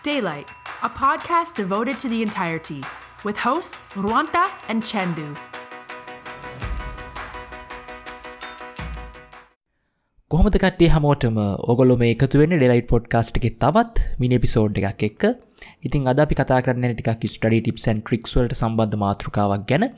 Daylight, a podcast devoted to the entirety, with hosts Ruanta and Chendu. කොහොමද කට්ටිය හැමෝටම? ඔයගොල්ලෝ මේ එකතු වෙන්නේ ඩේලයිට් පොඩ්කාස්ට් එකේ තවත් මිනි එපිසෝඩ් එකක් එක්ක. ඉතින් අද අපි කතා කරන්න යන්නේ ටිකක් ස්ටඩි ටිප්ස් ඇන්ඩ් ට්‍රික්ස් වලට සම්බන්ධ මාතෘකාවක් ගැන.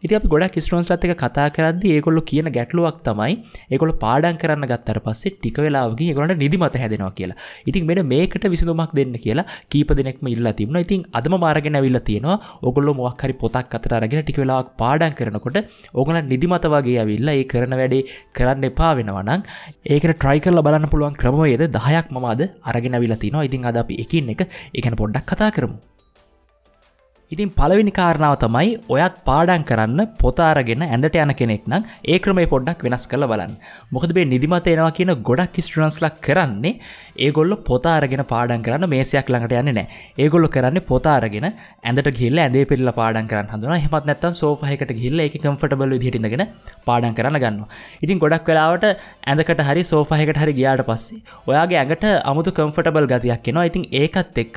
ඉතින් අපි ගොඩක් ස්ටුඩන්ට්ස්ලාත් එක්ක කතා කරද්දී ඒගොල්ලෝ කියන ගැටලුවක් තමයි ඒගොල්ලෝ පාඩම් කරන්න ගත්තට පස්සේ ටික වෙලාවකින් ඒගොල්ලන්ට නිදිමත හැදෙනවා කියලා. ඉතින් මෙන්න මේකට විසඳුමක් දෙන්න කියලා කීප දෙනෙක්ම ඉල්ලලා තිබුණා. ඉතින් අදම මාරගෙන ඇවිල්ලා තියෙනවා. ඕගොල්ලෝ මොකක් හරි පොතක් අතට අරගෙන ටික වෙලාවක් පාඩම් කරනකොට ඕගොල්ලන් නිදිමත වගේ ඇවිල්ලා ඒ කරන වැඩේ කරන්න එපා වෙනවා නම් ඒකට try කරලා බලන්න පුළුවන් ක්‍රමවේද 10ක් මම අද අරගෙන ඇවිල්ලා තිනවා. ඉතින් අද අපි එකින් එක ඒ ගැන පොඩ්ඩක් කතා කරමු. ඉතින් පළවෙනි කාරණාව තමයි ඔයත් පාඩම් කරන්න පොත අරගෙන ඇඳට යන කෙනෙක් නම් ඒ ක්‍රමය පොඩ්ඩක් වෙනස් කරලා බලන්න. මොකද මේ නිදිමත එනවා කියන ගොඩක් ස්ටුඩන්ට්ස්ලා කරන්නේ ඒගොල්ලෝ පොත අරගෙන පාඩම් කරන්න මේසයක් ළඟට යන්නේ නැහැ. ඒගොල්ලෝ කරන්නේ පොත අරගෙන ඇඳට ගිහිල්ලා ඇඳේ පෙරලා පාඩම් කරන්න හදනවා. එහෙමත් නැත්නම් සෝෆා එකකට ගිහිල්ලා ඒකේ කම්ෆර්ටබල් විදිහට ඉඳගෙන පාඩම් කරන්න ගන්නවා. ඉතින් ගොඩක් වෙලාවට ඇඳකට හරි සෝෆා එකකට හරි ගියාට පස්සේ ඔයාගේ ඇඟට අමුතු කම්ෆර්ටබල් ගතියක් එනවා. ඉතින් ඒකත් එක්ක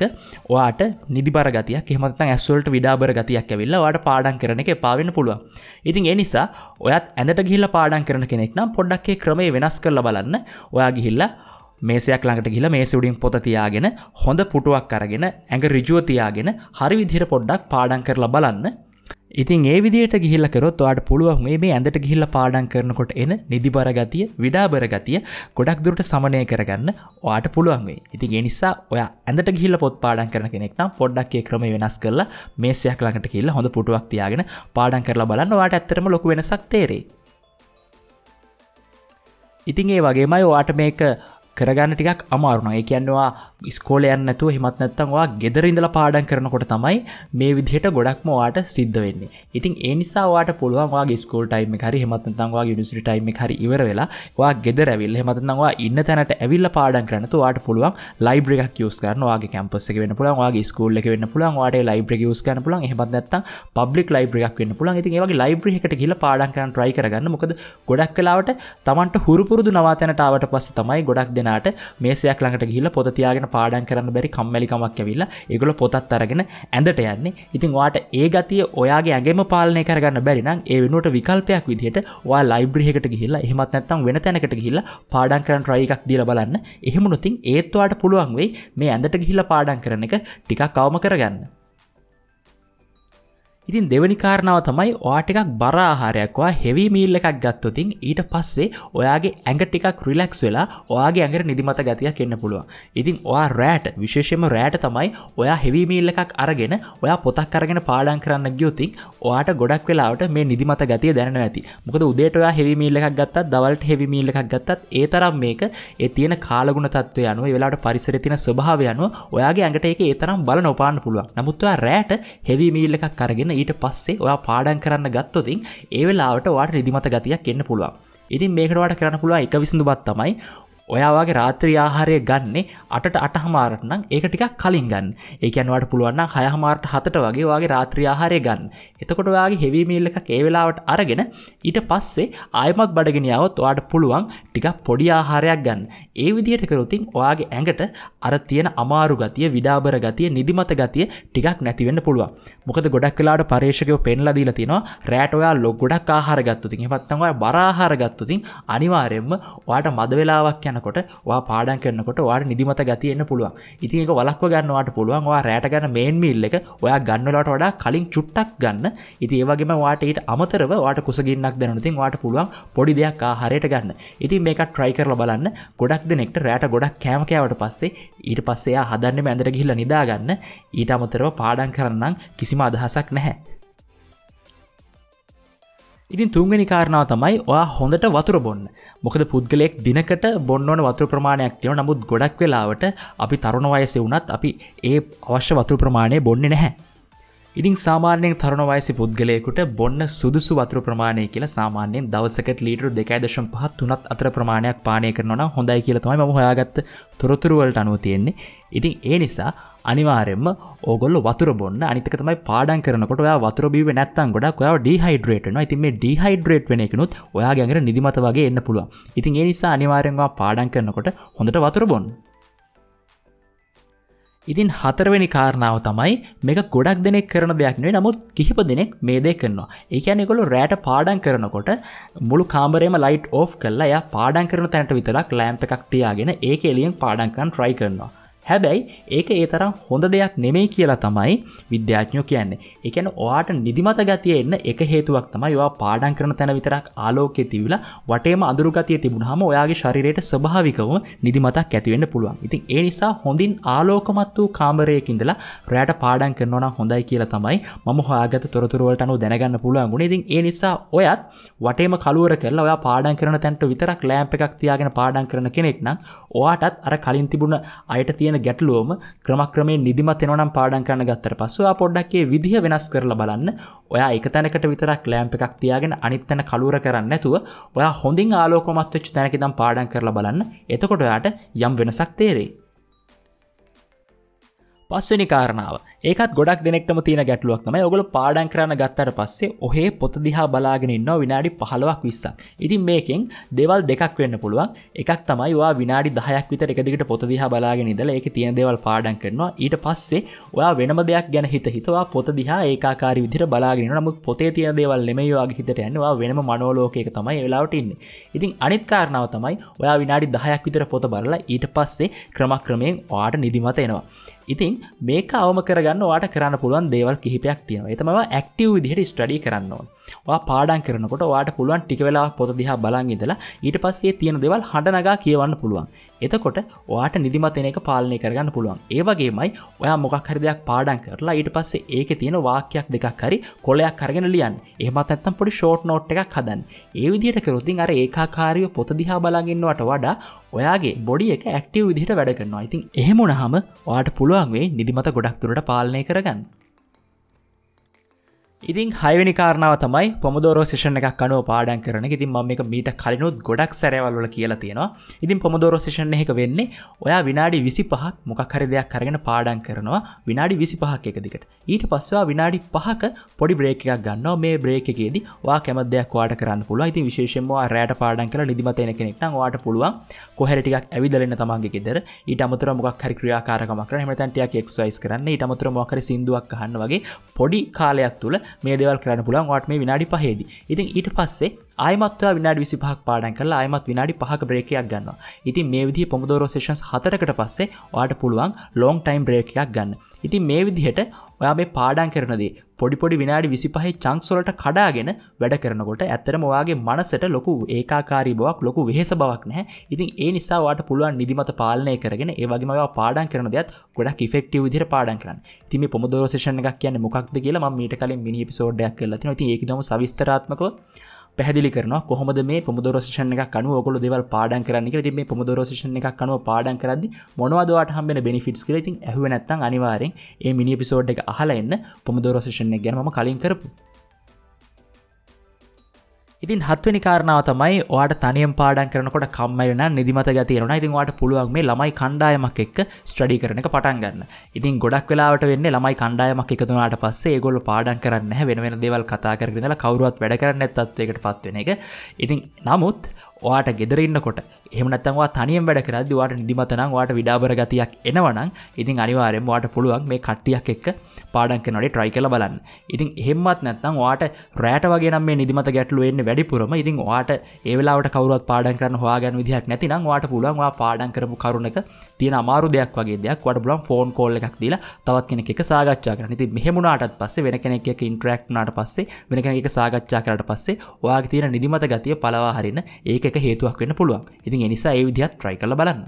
ඔයාට නිදිබර ගතියක් එහෙමත් නැත්නම් ඇස් වලට විඩාබර ගතියක් ඇවිල්ලා ඔයාට පාඩම් කරන එක එපා වෙන්න පුළුවන්. ඉතින් ඒ නිසා ඔයත් ඇඳට ගිහිල්ලා පාඩම් කරන කෙනෙක් නම් පොඩ්ඩක් ඒ ක්‍රමය වෙනස් කරලා බලන්න. ඔයා ගිහිල්ලා මේසයක් ළඟට ගිහිල්ලා මේසෙ උඩින් පොත තියාගෙන හොඳ පුටුවක් අරගෙන ඇඟ ඍජුව තියාගෙන හරි විදිහට පොඩ්ඩක් පාඩම් කරලා බලන්න. ඉතින් ඒ විදිහට ගිහිල්ලා කරොත් ඔයාට පුළුවන් මේ ඇඳට ගිහිල්ලා පාඩම් කරනකොට එන නිදිබර ගතිය, විඩාබර ගතිය ගොඩක් දුරට සමනය කරගන්න ඔයාට පුළුවන් වෙයි. ඉතින් ඒ නිසා ඔයා ඇඳට ගිහිල්ලා පොත් පාඩම් කරන කෙනෙක් නම් පොඩ්ඩක් ඒ ක්‍රමය වෙනස් කරලා මේසයක් ළඟට ගිහිල්ලා හොඳ පුටුවක් තියාගෙන පාඩම් කරලා බලන්න. ඔයාට ඇත්තටම ලොකු වෙනසක් තේරෙයි. ඉතින් ඒ වගේමයි ඔයාට මේක කරගන්න ටිකක් අමාරු නම්, ඒ කියන්නේ ඔයා ඉස්කෝලේ යන්නේ නැතුව එහෙමත් නැත්නම් ඔයා ගෙදර ඉඳලා පාඩම් කරනකොට තමයි මේ විදිහට ගොඩක්ම ඔයාට සිද්ධ වෙන්නේ. ඉතින් ඒ නිසා ඔයාට පුළුවන් ඔයාගේ ඉස්කෝල ටයිම් එක හරි එහෙමත් නැත්නම් ඔයාගේ යුනිවර්සිටි ටයිම් එක හරි ඉවර වෙලා ඔයා ගෙදර ඇවිල්ලා එහෙමත් නැත්නම් ඔයා ඉන්න තැනට ඇවිල්ලා පාඩම් කරන්න නැතුව ඔයාට පුළුවන් ලයිබ්‍රරි එකක් යූස් කරන්න. ඔයාගේ කැම්පස් එක වෙන්න පුළුවන්, ඔයාගේ ඉස්කෝල් එක වෙන්න පුළුවන්, ඔයාට ඒ ලයිබ්‍රරි එක යූස් කරන්න පුළුවන්, එහෙමත් නැත්නම් පබ්ලික් ලයිබ්‍රරි එකක් වෙන්න පුළුවන්. ඉතින් ඒ වගේ ලයිබ්‍රරි එකකට ගිහිල්ලා පාඩම් කරන්න try කරගන්න. මොකද ගොඩක් වෙලාවට Tamanට හුරු පුරුදු නවාතැනට ආවට පස්සේ තමයි ගොඩක් දෙනාට මේසයක් ළඟට ගිහිල්ලා පොත තියාගෙන පාඩම් කරන්න බැරි කම්මැලිකමක් ඇවිල්ලා ඒගොල්ලෝ පොතත් අරගෙන ඇඳට යන්නේ. ඉතින් ඔයාට ඒ ගතිය ඔයාගේ ඇඟෙම පාලනය කරගන්න බැරි නම් ඒ වෙනුවට විකල්පයක් විදිහට ඔයා ලයිබ්‍රරි එකට ගිහිල්ලා එහෙමත් නැත්නම් වෙන තැනකට ගිහිල්ලා පාඩම් කරන්න try එකක් දීලා බලන්න. එහෙම වුණොත් ඒත් ඔයාට පුළුවන් වෙයි මේ ඇඳට ගිහිල්ලා පාඩම් කරන එක ටිකක් අවම කරගන්න. ඉතින් දෙවෙනි කාරණාව තමයි ඔයා ටිකක් බර ආහාරයක්, ඔයා හෙවි මීල් එකක් ගත්තොත් ඊට පස්සේ ඔයාගේ ඇඟ ටිකක් රිලැක්ස් වෙලා ඔයාගේ ඇඟට නිදිමත ගතියක් එන්න පුළුවන්. ඉතින් ඔයා රැට, විශේෂයෙන්ම රැට තමයි ඔයා හෙවි මීල් එකක් අරගෙන ඔයා පොතක් අරගෙන පාඩම් කරන්න ගියොත් ඔයාට ගොඩක් වෙලාවට මේ නිදිමත ගතිය දැනෙනවා ඇති. මොකද උදේට ඔයා හෙවි මීල් එකක් ගත්තත් දවල්ට හෙවි මීල් එකක් ගත්තත් ඒ තරම් මේක ඒ තියෙන කාලගුණ තත්ත්වය අනුව, ඒ වෙලාවට පරිසරයේ තියෙන ස්වභාවය අනුව ඔයාගේ ඇඟට ඒක ඒ තරම් බල නොපාන්න පුළුවන්. නමුත් ඔයා රැට හෙවි මීල් එකක් අරගෙන ඊට පස්සේ ඔයා පාඩම් කරන්න ගත්තොත් ඒ වෙලාවට ඔයාට නිදිමත ගතියක් එන්න පුළුවන්. ඉතින් මේකට ඔයාට කරන්න පුළුවන් එක විසඳුමක් තමයි ඔයා වගේ රාත්‍රී ආහාරය ගන්නෙ 8ට 8:30ට නම් ඒක ටිකක් කලින් ගන්න. ඒ කියන්නේ ඔයාට පුළුවන් නම් 6:30ට 7ට වගේ ඔයාගේ රාත්‍රී ආහාරය ගන්න. එතකොට ඔයාගේ හෙවි මීල් එකක් ඒ වෙලාවට අරගෙන ඊට පස්සේ ආයෙමත් බඩගිනි ආවොත් ඔයාට පුළුවන් ටිකක් පොඩි ආහාරයක් ගන්න. ඒ විදිහට කරොත් ඔයාගේ ඇඟට අර තියෙන අමාරු ගතිය, විඩාබර ගතිය, නිදිමත ගතිය ටිකක් නැති වෙන්න පුළුවන්. මොකද ගොඩක් වෙලාවට පර්යේෂකයෝ පෙන්ලා දීලා තියෙනවා රැට ඔයා ගොඩක් ආහාර ගත්තොත් එහෙමත් නැත්නම් ඔයා බර ආහාර ගත්තොත් අනිවාර්යයෙන්ම ඔයාට මද වෙලාවක් යන කොට ඔයා පාඩම් කරනකොට ඔයාට නිදිමත ගතිය එන්න පුළුවන්. ඉතින් ඒක වළක්ව ගන්න ඔයාට පුළුවන් ඔයා රැට ගන්න මේන් මීල් එක ඔයා ගන්න වෙලාවට වඩා කලින් චුට්ටක් ගන්න. ඉතින් ඒ වගේම ඔයාට ඊට අමතරව ඔයාට කුසගින්නක් දැනුණොත් ඉතින් ඔයාට පුළුවන් පොඩි දෙයක් ආහාරයට ගන්න. ඉතින් මේකත් try කරලා බලන්න. ගොඩක් දෙනෙක්ට රැට ගොඩක් කෑම කෑවට පස්සේ ඊට පස්සේ එයා හදන්නෙම ඇඳට ගිහිල්ලා නිදා ගන්න. ඊට අමතරව පාඩම් කරන්න නම් කිසිම අදහසක් නැහැ. ඉතින් තුන්වෙනි කාරණාව තමයි ඔයා හොඳට වතුර බොන්න. මොකද පුද්ගලයෙක් දිනකට බොන්න ඕන වතුර ප්‍රමාණයක් තියෙනවා. නමුත් ගොඩක් වෙලාවට අපි තරුණ වයසේ වුණත් අපි ඒ අවශ්‍ය වතුර ප්‍රමාණය බොන්නේ නැහැ. ඉතින් සාමාන්‍යයෙන් තරුණ වයසේ පුද්ගලයෙකුට බොන්න සුදුසු වතුර ප්‍රමාණය කියලා සාමාන්‍යයෙන් දවසකට ලීටර් 2.5 3 අතර ප්‍රමාණයක් පානය කරනවා නම් හොඳයි කියලා තමයි මම හොයාගත්ත තොරතුරු වලට අනුව තියෙන්නේ. ඉතින් ඒ නිසා අනිවාර්යයෙන්ම ඕගොල්ලෝ වතුර බොන්න. අනිත් එක තමයි පාඩම් කරනකොට ඔයා වතුර බීුවේ නැත්නම් ගොඩක් ඔයාව ඩීහයිඩ්‍රේට් වෙනවා. ඉතින් මේ ඩීහයිඩ්‍රේට් වෙන එකනොත් ඔයාගේ ඇඟට නිදිමත වගේ එන්න පුළුවන්. ඉතින් ඒ නිසා අනිවාර්යෙන්ම ඔයා පාඩම් කරනකොට හොඳට වතුර බොන්න. ඉතින් හතරවෙනි කාරණාව තමයි මේක ගොඩක් දෙනෙක් කරන දෙයක් නෙවෙයි, නමුත් කිහිප දෙනෙක් මේ දේ කරනවා. ඒ කියන්නේ ඒගොල්ලෝ රැට පාඩම් කරනකොට මුළු කාමරේම ලයිට් ඕෆ් කරලා එයා පාඩම් කරන තැනට විතරක් ලෑම්ප් එකක් තියාගෙන ඒක එළියෙන් පාඩම් කරන්න try කරනවා. හැබැයි ඒක ඒ තරම් හොඳ දෙයක් නෙමෙයි කියලා තමයි විද්‍යාඥයෝ කියන්නේ. ඒ කියන්නේ ඔයාට නිදිමත ගතිය එන්න එක හේතුවක් තමයි ඔයා පාඩම් කරන තැන විතරක් ආලෝකය තිබිලා වටේම අඳුරු ගතිය තිබුණාම ඔයාගේ ශරීරයට ස්වභාවිකවම නිදිමතක් ඇති වෙන්න පුළුවන්. ඉතින් ඒ නිසා හොඳින් ආලෝකමත් වූ කාමරයක ඉඳලා රැට පාඩම් කරනවා නම් හොඳයි කියලා තමයි මම හොයාගත්ත තොරතුරු වලට අනුව දැනගන්න පුළුවන් වුණේ. ඉතින් ඒ නිසා ඔයත් වටේම කළුවර කරලා ඔයා පාඩම් කරන තැනට විතරක් ලෑම්ප් එකක් තියාගෙන පාඩම් කරන කෙනෙක් නම් ඔයාටත් අර කලින් තිබුණ අයට තියෙන ගැටලුවම ක්‍රමක්‍රමයෙන් නිදිමත එනවා නම් පාඩම් කරන්න ගත්තට පස්සේ ඔයා පොඩ්ඩක් ඒ විදිහ වෙනස් කරලා බලන්න. ඔයා එක තැනකට විතරක් ලෑම්ප් එකක් තියාගෙන අනිත් තැන කළුවර කරන්නේ නැතුව ඔයා හොඳින් ආලෝකමත් වෙච්ච තැනක ඉඳන් පාඩම් කරලා බලන්න. එතකොට ඔයාට යම් වෙනසක් තේරෙයි. පස්වෙනි කාරණාව. ඒකත් ගොඩක් දෙනෙක්ටම තියෙන ගැටලුවක් තමයි. ඔයගොල්ලෝ පාඩම් කරන්න ගත්තට පස්සේ ඔහේ පොත දිහා බලාගෙන ඉන්නවා විනාඩි 15ක් 20ක්. ඉතින් මේකෙන් දේවල් දෙකක් වෙන්න පුළුවන්. එකක් තමයි ඔයා විනාඩි 10ක් විතර එක දිගට පොත දිහා බලාගෙන ඉඳලා ඒකේ තියෙන දේවල් පාඩම් කරනවා. ඊට පස්සේ ඔයා වෙනම දෙයක් ගැන හිත හිත ඔයා පොත දිහා ඒකාකාරී විදිහට බලාගෙන ඉන්නවා. නමුත් පොතේ තියෙන දේවල් නෙමෙයි ඔයාගේ හිතට යන්නේ. ඔයා වෙනම මනෝලෝකයක තමයි ඒ වෙලාවට ඉන්නේ. ඉතින් අනිත් කාරණාව තමයි ඔයා විනාඩි 10ක් විතර පොත බලලා ඊට පස්සේ ක්‍රමක්‍රමයෙන් ඔයාට නිදිමත එනවා. ඉතින් මේක අවම කරගන්න ඔයාට කරන්න පුළුවන් දේවල් කිහිපයක් තියෙනවා. ඒ තමයි ඔයා ඇක්ටිව් විදිහට ස්ටඩි කරන්න ඕන. ඔයා පාඩම් කරනකොට ඔයාට පුළුවන් ටික වෙලාවක් පොත දිහා බලන් ඉඳලා ඊට පස්සේ තියෙන දේවල් හඬ නගා කියවන්න පුළුවන්. එතකොට ඔයාට නිදිමත එන එක පාලනය කරගන්න පුළුවන්. ඒ වගේමයි ඔයා මොකක් හරි දෙයක් පාඩම් කරලා ඊට පස්සේ ඒකේ තියෙන වාක්‍යයක් දෙකක් හරි කොලයක් අරගෙන ලියන්න. එහෙමත් නැත්නම් පොඩි ෂෝට් නෝට් එකක් හදන්න. ඒ විදිහට කරොත් ඉතින් අර ඒකාකාරීව පොත දිහා බලන් ඉන්නවට වඩා ඔයාගේ බොඩි එක ඇක්ටිව් විදිහට වැඩ කරනවා. ඉතින් එහෙම වුණාම ඔයාට පුළුවන් වෙයි නිදිමත ගොඩක් දුරට පාලනය කරගන්න. ඉතින් හයවෙනි කාරණාව තමයි පොමොඩෝරෝ සෙෂන් එකක් අනුව පාඩම් කරන එක. ඉතින් මම මේක මීට කලිනුත් ගොඩක් සැරවල් වල කියලා තියෙනවා. ඉතින් පොමොඩෝරෝ සෙෂන් එකක වෙන්නේ ඔයා විනාඩි 25ක් මොකක් හරි දෙයක් අරගෙන පාඩම් කරනවා විනාඩි 25ක් එක දිගට. ඊට පස්සේ ඔයා විනාඩි 5ක පොඩි බ්‍රේක් එකක් ගන්නවා. මේ බ්‍රේක් එකේදී ඔයා කැමති දෙයක් ඔයාට කරන්න පුළුවන්. ඉතින් විශේෂයෙන්ම ඔයා රැට පාඩම් කරලා නිදිමත එන කෙනෙක් නම් ඔයාට පුළුවන් කොහේ හරි ටිකක් ඇවිදලා එන්න තමන්ගේ ගෙදර. ඊට අමතරව මොකක් හරි ක්‍රියාකාරකමක් කරන්න. එහෙම නැත්නම් ටිකක් එක්සර්සයිස් කරන්න. ඊට අමතරව මොකක් හරි සින්දුවක් අහන්න වගේ පොඩි කාලයක් තුල මේ දේවල් කරන්න පුළුවන් ඔයාට මේ විනාඩි 5ේදී. ඉතින් ඊට පස්සේ ආයෙමත් ඔයා විනාඩි 25ක් පාඩම් කරලා ආයෙමත් විනාඩි 5ක බ්‍රේක් එකක් ගන්නවා. ඉතින් මේ විදිහේ පොමොඩෝරෝ සෙෂන්ස් 4කට පස්සේ ඔයාට පුළුවන් ලොං ටයිම් බ්‍රේක් එකක් ගන්න. ඉතින් මේ විදිහට ඔයා මේ පාඩම් කරන දේ පොඩි පොඩි විනාඩි 25 චන්ක්ස් වලට කඩාගෙන වැඩ කරනකොට ඇත්තටම ඔයාගේ මනසට ලොකු ඒකාකාරී බවක් ලොකු වෙහෙස බවක් නැහැ. ඉතින් ඒ නිසා ඔයාට පුළුවන් නිදිමත පාලනය කරගෙන ඒ වගේම ඔයා පාඩම් කරන දේත් ගොඩක් ඉෆෙක්ටිව් විදිහට පාඩම් කරන්න. ඉතින් මේ පොමොඩෝරෝ සෙෂන් එකක් කියන්නේ මොකක්ද කියලා මම මීට කලින් මිනි එපිසෝඩ් එකක් කරලා තිනවා. ඉතින් ඒක ඉදම සවිස්තරාත්මකව පැහැදිලි කරනවා කොහොමද මේ පොමොඩෝරෝ සෙෂන් එකක් අනුව ඔයගොල්ලෝ දේවල් පාඩම් කරන්න කියලා. ඉතින් මේ පොමොඩෝරෝ සෙෂන් එකක් අනුව පාඩම් කරද්දි මොනවද ඔයාට හම්බෙන බෙනිෆිට්ස් කියලා. ඉතින් ඇහුවේ නැත්නම් අනිවාර්යෙන් මේ මිනි එපිසෝඩ් එක අහලා එන්න පොමොඩෝරෝ සෙෂන් එක ගැන මම කලින් කරපු. ඉතින් හත්වෙනි කාරණාව තමයි ඔයාට තනියම පාඩම් කරනකොට කම්මැලි නම් නිදිමත ගතිය එනවා. ඉතින් ඔයාට පුළුවන් මේ ළමයි කණ්ඩායමක් එක්ක ස්ටඩි කරන එක පටන් ගන්න. ඉතින් ගොඩක් වෙලාවට වෙන්නේ ළමයි කණ්ඩායමක් එකතු වුණාට පස්සේ ඒගොල්ලෝ පාඩම් කරන්නේ නැහැ, වෙන වෙන දේවල් කතා කරගෙන ඉඳලා කවුරුවත් වැඩ කරන්නේ නැත් තත්වයකට පත් වෙන එක. ඉතින් නමුත් ඔයාට ගෙදර ඉන්නකොට එහෙම නැත්නම් ඔයා තනියම වැඩ කරද්දි ඔයාට නිදිමත නම් ඔයාට විඩාබර ගතියක් එනවා නම් ඉතින් අනිවාර්යයෙන්ම ඔයාට පුළුවන් මේ කට්ටියක් එක්ක පාඩම් කරනකොට try කරලා බලන්න. ඉතින් එහෙම්වත් නැත්නම් ඔයාට රැට වගේ නම් මේ නිදිමත ගැටලුව එන්නේ වැඩිපුරම. ඉතින් ඔයාට ඒ වෙලාවට කවුරුවත් පාඩම් කරන්න හොයාගන්න විදිහක් නැතිනම් ඔයාට පුළුවන් ඔයා පාඩම් කරපු කරුණක තියෙන අමාරු දෙයක් වගේ දෙයක් ඔයාට පුළුවන් ෆෝන් කෝල් එකක් දීලා තවත් කෙනෙක් එක්ක සාකච්ඡා කරන්න. ඉතින් මෙහෙම වුණාටත් පස්සේ වෙන කෙනෙක් එක්ක ඉන්ටරැක්ට් වුණාට පස්සේ වෙන කෙනෙක් එක්ක සාකච්ඡා කරාට පස්සේ ඔයාගේ තියෙන නිදිමත ගතිය පළවා හරින්න ඒක එක හේතුවක් වෙන්න පුළුවන්. ඉතින් ඒ නිසා ඒ විදිහත් try කරලා බලන්න.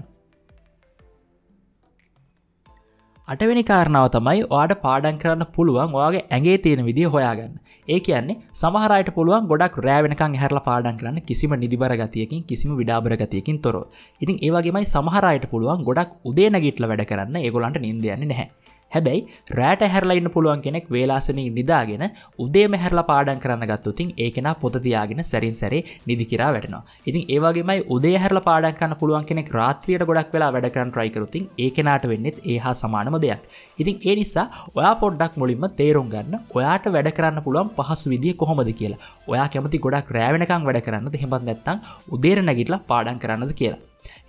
අටවෙනි කාරණාව තමයි ඔයාට පාඩම් කරන්න පුළුවන් ඔයාගේ ඇඟේ තියෙන විදිය හොයාගන්න. ඒ කියන්නේ සමහර අයට පුළුවන් ගොඩක් රෑ වෙනකන් ඇහැරලා පාඩම් කරන්න කිසිම නිදිබර ගතියකින් කිසිම විඩාබර ගතියකින් තොරව. ඉතින් ඒ වගේමයි සමහර අයට පුළුවන් ගොඩක් උදේ නැගිටලා වැඩ කරන්න, ඒගොල්ලන්ට නිින්ද යන්නේ නැහැ. හැබැයි රෑට ඇහැරලා ඉන්න පුළුවන් කෙනෙක් වේලාසනින් නිදාගෙන උදේම ඇහැරලා පාඩම් කරන්න ගත්තොත් ඉතින් ඒ කෙනා පොත තියාගෙන සැරින් සැරේ නිදි කිරා වැටෙනවා. ඉතින් ඒ වගේමයි උදේ ඇහැරලා පාඩම් කරන්න පුළුවන් කෙනෙක් රාත්‍රියට ගොඩක් වෙලා වැඩ කරන්න try කරොත් ඉතින් ඒ කෙනාට වෙන්නේත් ඒ හා සමානම දෙයක්. ඉතින් ඒ නිසා ඔයා පොඩ්ඩක් මුලින්ම තේරුම් ගන්න ඔයාට වැඩ කරන්න පුළුවන් පහසු විදිය කොහොමද කියලා. ඔයා කැමති ගොඩක් රෑ වෙනකන් වැඩ කරන්නද එහෙමත් නැත්නම් උදේට නැගිටලා පාඩම් කරන්නද කියලා.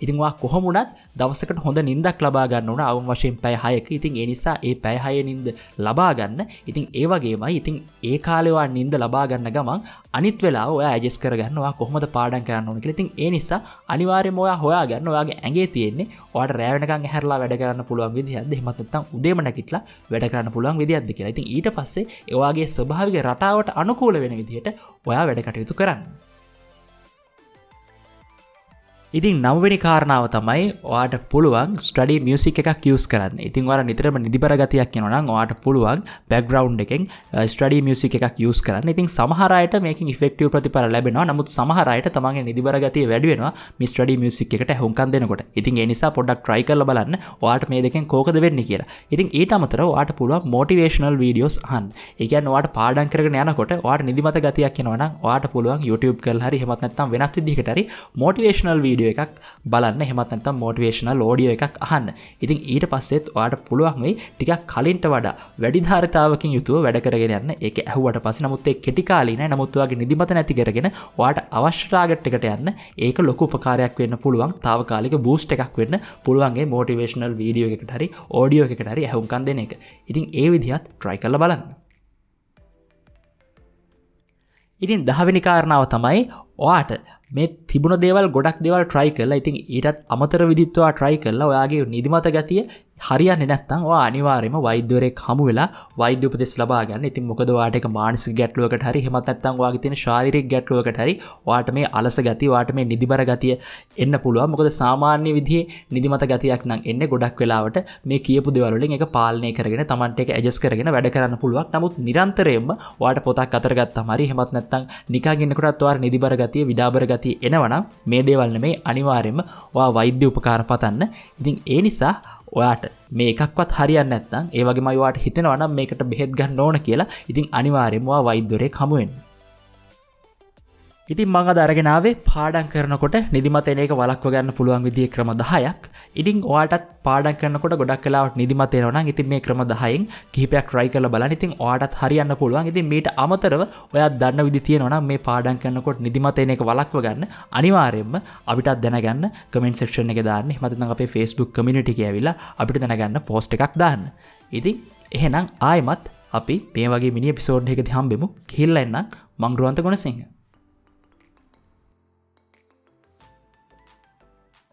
ඉතින් ඔයා කොහොම වුණත් දවසකට හොඳ නිින්දක් ලබා ගන්න ඕන අවම වශයෙන් පැය 6ක. ඉතින් ඒ නිසා ඒ පැය 6 නිින්ද ලබා ගන්න. ඉතින් ඒ වගේමයි ඉතින් ඒ කාලේ ඔයා නිින්ද ලබා ගන්න ගමන් අනිත් වෙලාව ඔයා ඇඩ්ජස්ට් කරගන්න ඔයා කොහොමද පාඩම් කරන්න ඕන කියලා. ඉතින් ඒ නිසා අනිවාර්යයෙන්ම ඔයා හොයාගන්න ඔයාගේ ඇඟේ තියෙන්නේ ඔයාට රැ වෙනකන් ඇහැරලා වැඩ කරන්න පුළුවන් විදිහක්ද, එහෙමත් නැත්නම් උදේම නැගිටලා වැඩ කරන්න පුළුවන් විදිහක්ද කියලා. ඉතින් ඊට පස්සේ ඔයාගේ ස්වභාවික රටාවට අනුකූල වෙන විදිහට ඔයා වැඩ කටයුතු කරන්න. ඉතින් නවවෙනි කාරණාව තමයි ඔයාට පුළුවන් ස්ටඩි මියුසික් එකක් යූස් කරන්න. ඉතින් ඔයාලා නිතරම නිදිබර ගතියක් එනවා නම් ඔයාට පුළුවන් බෑග්ග්‍රවුන්ඩ් එකෙන් ස්ටඩි මියුසික් එකක් යූස් කරන්න. ඉතින් සමහර අයට මේකෙන් ඉෆෙක්ටිව් ප්‍රතිඵල ලැබෙනවා. නමුත් සමහර අයට තමන්ගේ නිදිබර ගතිය වැඩි වෙනවා මේ ස්ටඩි මියුසික් එකට ඇහුම්කන් දෙනකොට. ඉතින් ඒ නිසා පොඩ්ඩක් try කරලා බලන්න ඔයාට මේ දෙකෙන් කෝකද වෙන්නේ කියලා. ඉතින් ඊට අමතරව ඔයාට පුළුවන් මොටිවේෂනල් වීඩියෝස් අහන්න. ඒ කියන්නේ ඔයාට පාඩම් කරගෙන යනකොට ඔයාට නිදිමත ගතියක් එනවා නම් ඔයාට පුළුවන් YouTube කරලා හරි එහෙමත් නැත්නම් වෙනත් විදිහකට හරි මොටිවේෂනල් වීඩියෝ එකක් බලන්න, එහෙමත් නැත්නම් මොටිවේෂනල් ඔඩියෝ එකක් අහන්න. ඉතින් ඊට පස්සෙත් ඔයාට පුළුවන් වෙයි ටිකක් කලින්ට වඩා වැඩි ධාරිතාවකින් යුතුව වැඩ කරගෙන යන්න. ඒක ඇහුවට පස්සේ නමුත් ඒ කෙටි කාලීනයි. නමුත් ඔයාගේ නිදිමත නැති කරගෙන ඔයාට අවශ්‍ය ටාගට් එකට යන්න ඒක ලොකු උපකාරයක් වෙන්න පුළුවන්. තාවකාලික බූස්ට් එකක් වෙන්න පුළුවන් ඒ මොටිවේෂනල් වීඩියෝ එකකට හරි ඔඩියෝ එකකට හරි ඇහුම්කන් දෙන එක. ඉතින් ඒ විදිහත් try කරලා බලන්න. ඉතින් 10 වෙනි කාරණාව තමයි ඔයාට මේ තිබුණ දේවල් ගොඩක් දේවල් try කරලා ඉතින් ඊටත් අමතර විදිහට ඔයා try කරලා ඔයාගේ නිදිමත ගතිය හරියන්නේ නැත්නම් ඔයා අනිවාර්යයෙන්ම වෛද්‍යවරයෙක් හමු වෙලා වෛද්‍ය උපදෙස් ලබා ගන්න. ඉතින් මොකද ඔයාට ඒක මානසික ගැටලුවකට හරි එහෙමත් නැත්නම් ඔයාගේ තියෙන ශාරීරික ගැටලුවකට හරි ඔයාට මේ අලස ගතිය, ඔයාට මේ නිදිබර ගතිය එන්න පුළුවන්. මොකද සාමාන්‍ය විදිහේ නිදිමත ගතියක් නම් එන්නේ ගොඩක් වෙලාවට මේ කියපු දේවල් වලින් ඒක පාලනය කරගෙන Tamante ඒක ඇඩ්ජස්ට් කරගෙන වැඩ කරන්න පුළුවන්. නමුත් නිරන්තරයෙන්ම ඔයාට පොතක් අතර ගත්තාම හරි එහෙමත් නැත්නම් නිකන් ඉන්නකොටත් ඔයාට නිදිබර ගතිය, විඩාබර ගතිය එනවනම් මේ දේවල් නෙමෙයි අනිවාර්යයෙන්ම ඔයා වෛද්‍ය උපකාර පතන්න. ඉතින් ඒ නිසා ඔයාට මේ එකක්වත් හරියන්නේ නැත්නම් ඒ වගේමයි ඔයාට හිතෙනවා නම් මේකට බෙහෙත් ගන්න ඕන කියලා, ඉතින් අනිවාර්යයෙන්ම ඔයා වෛද්‍යවරයෙක් හමු වෙන්න. ඉතින් මම අද අරගෙන ආවේ පාඩම් කරනකොට නිදිමත එන එක වළක්ව ගන්න පුළුවන් විදිහේ ක්‍රම 10ක්. ඉතින් ඔයාටත් පාඩම් කරනකොට ගොඩක් වෙලාවට නිදිමත එනවා නම් ඉතින් මේ ක්‍රම 10න් කිහිපයක් try කරලා බලන්න. ඉතින් ඔයාටත් හරියන්න පුළුවන්. ඉතින් මීට අමතරව ඔයා දන්න විදි තියෙනවා නම් මේ පාඩම් කරනකොට නිදිමත එන එක වළක්ව ගන්න අනිවාර්යයෙන්ම අපිටත් දැනගන්න කමෙන්ට් සෙක්ෂන් එකේ දාන්න. එහෙම නැත්නම් අපේ Facebook community එකේ ඇවිල්ලා අපිට දැනගන්න පෝස්ට් එකක් දාන්න. ඉතින් එහෙනම් ආයෙමත් අපි මේ වගේ මිනි එපිසෝඩ් එකකදී හම්බෙමු. ගිහිල්ලා එන්නම්. මං රුවන්ත ගුණසිංහ.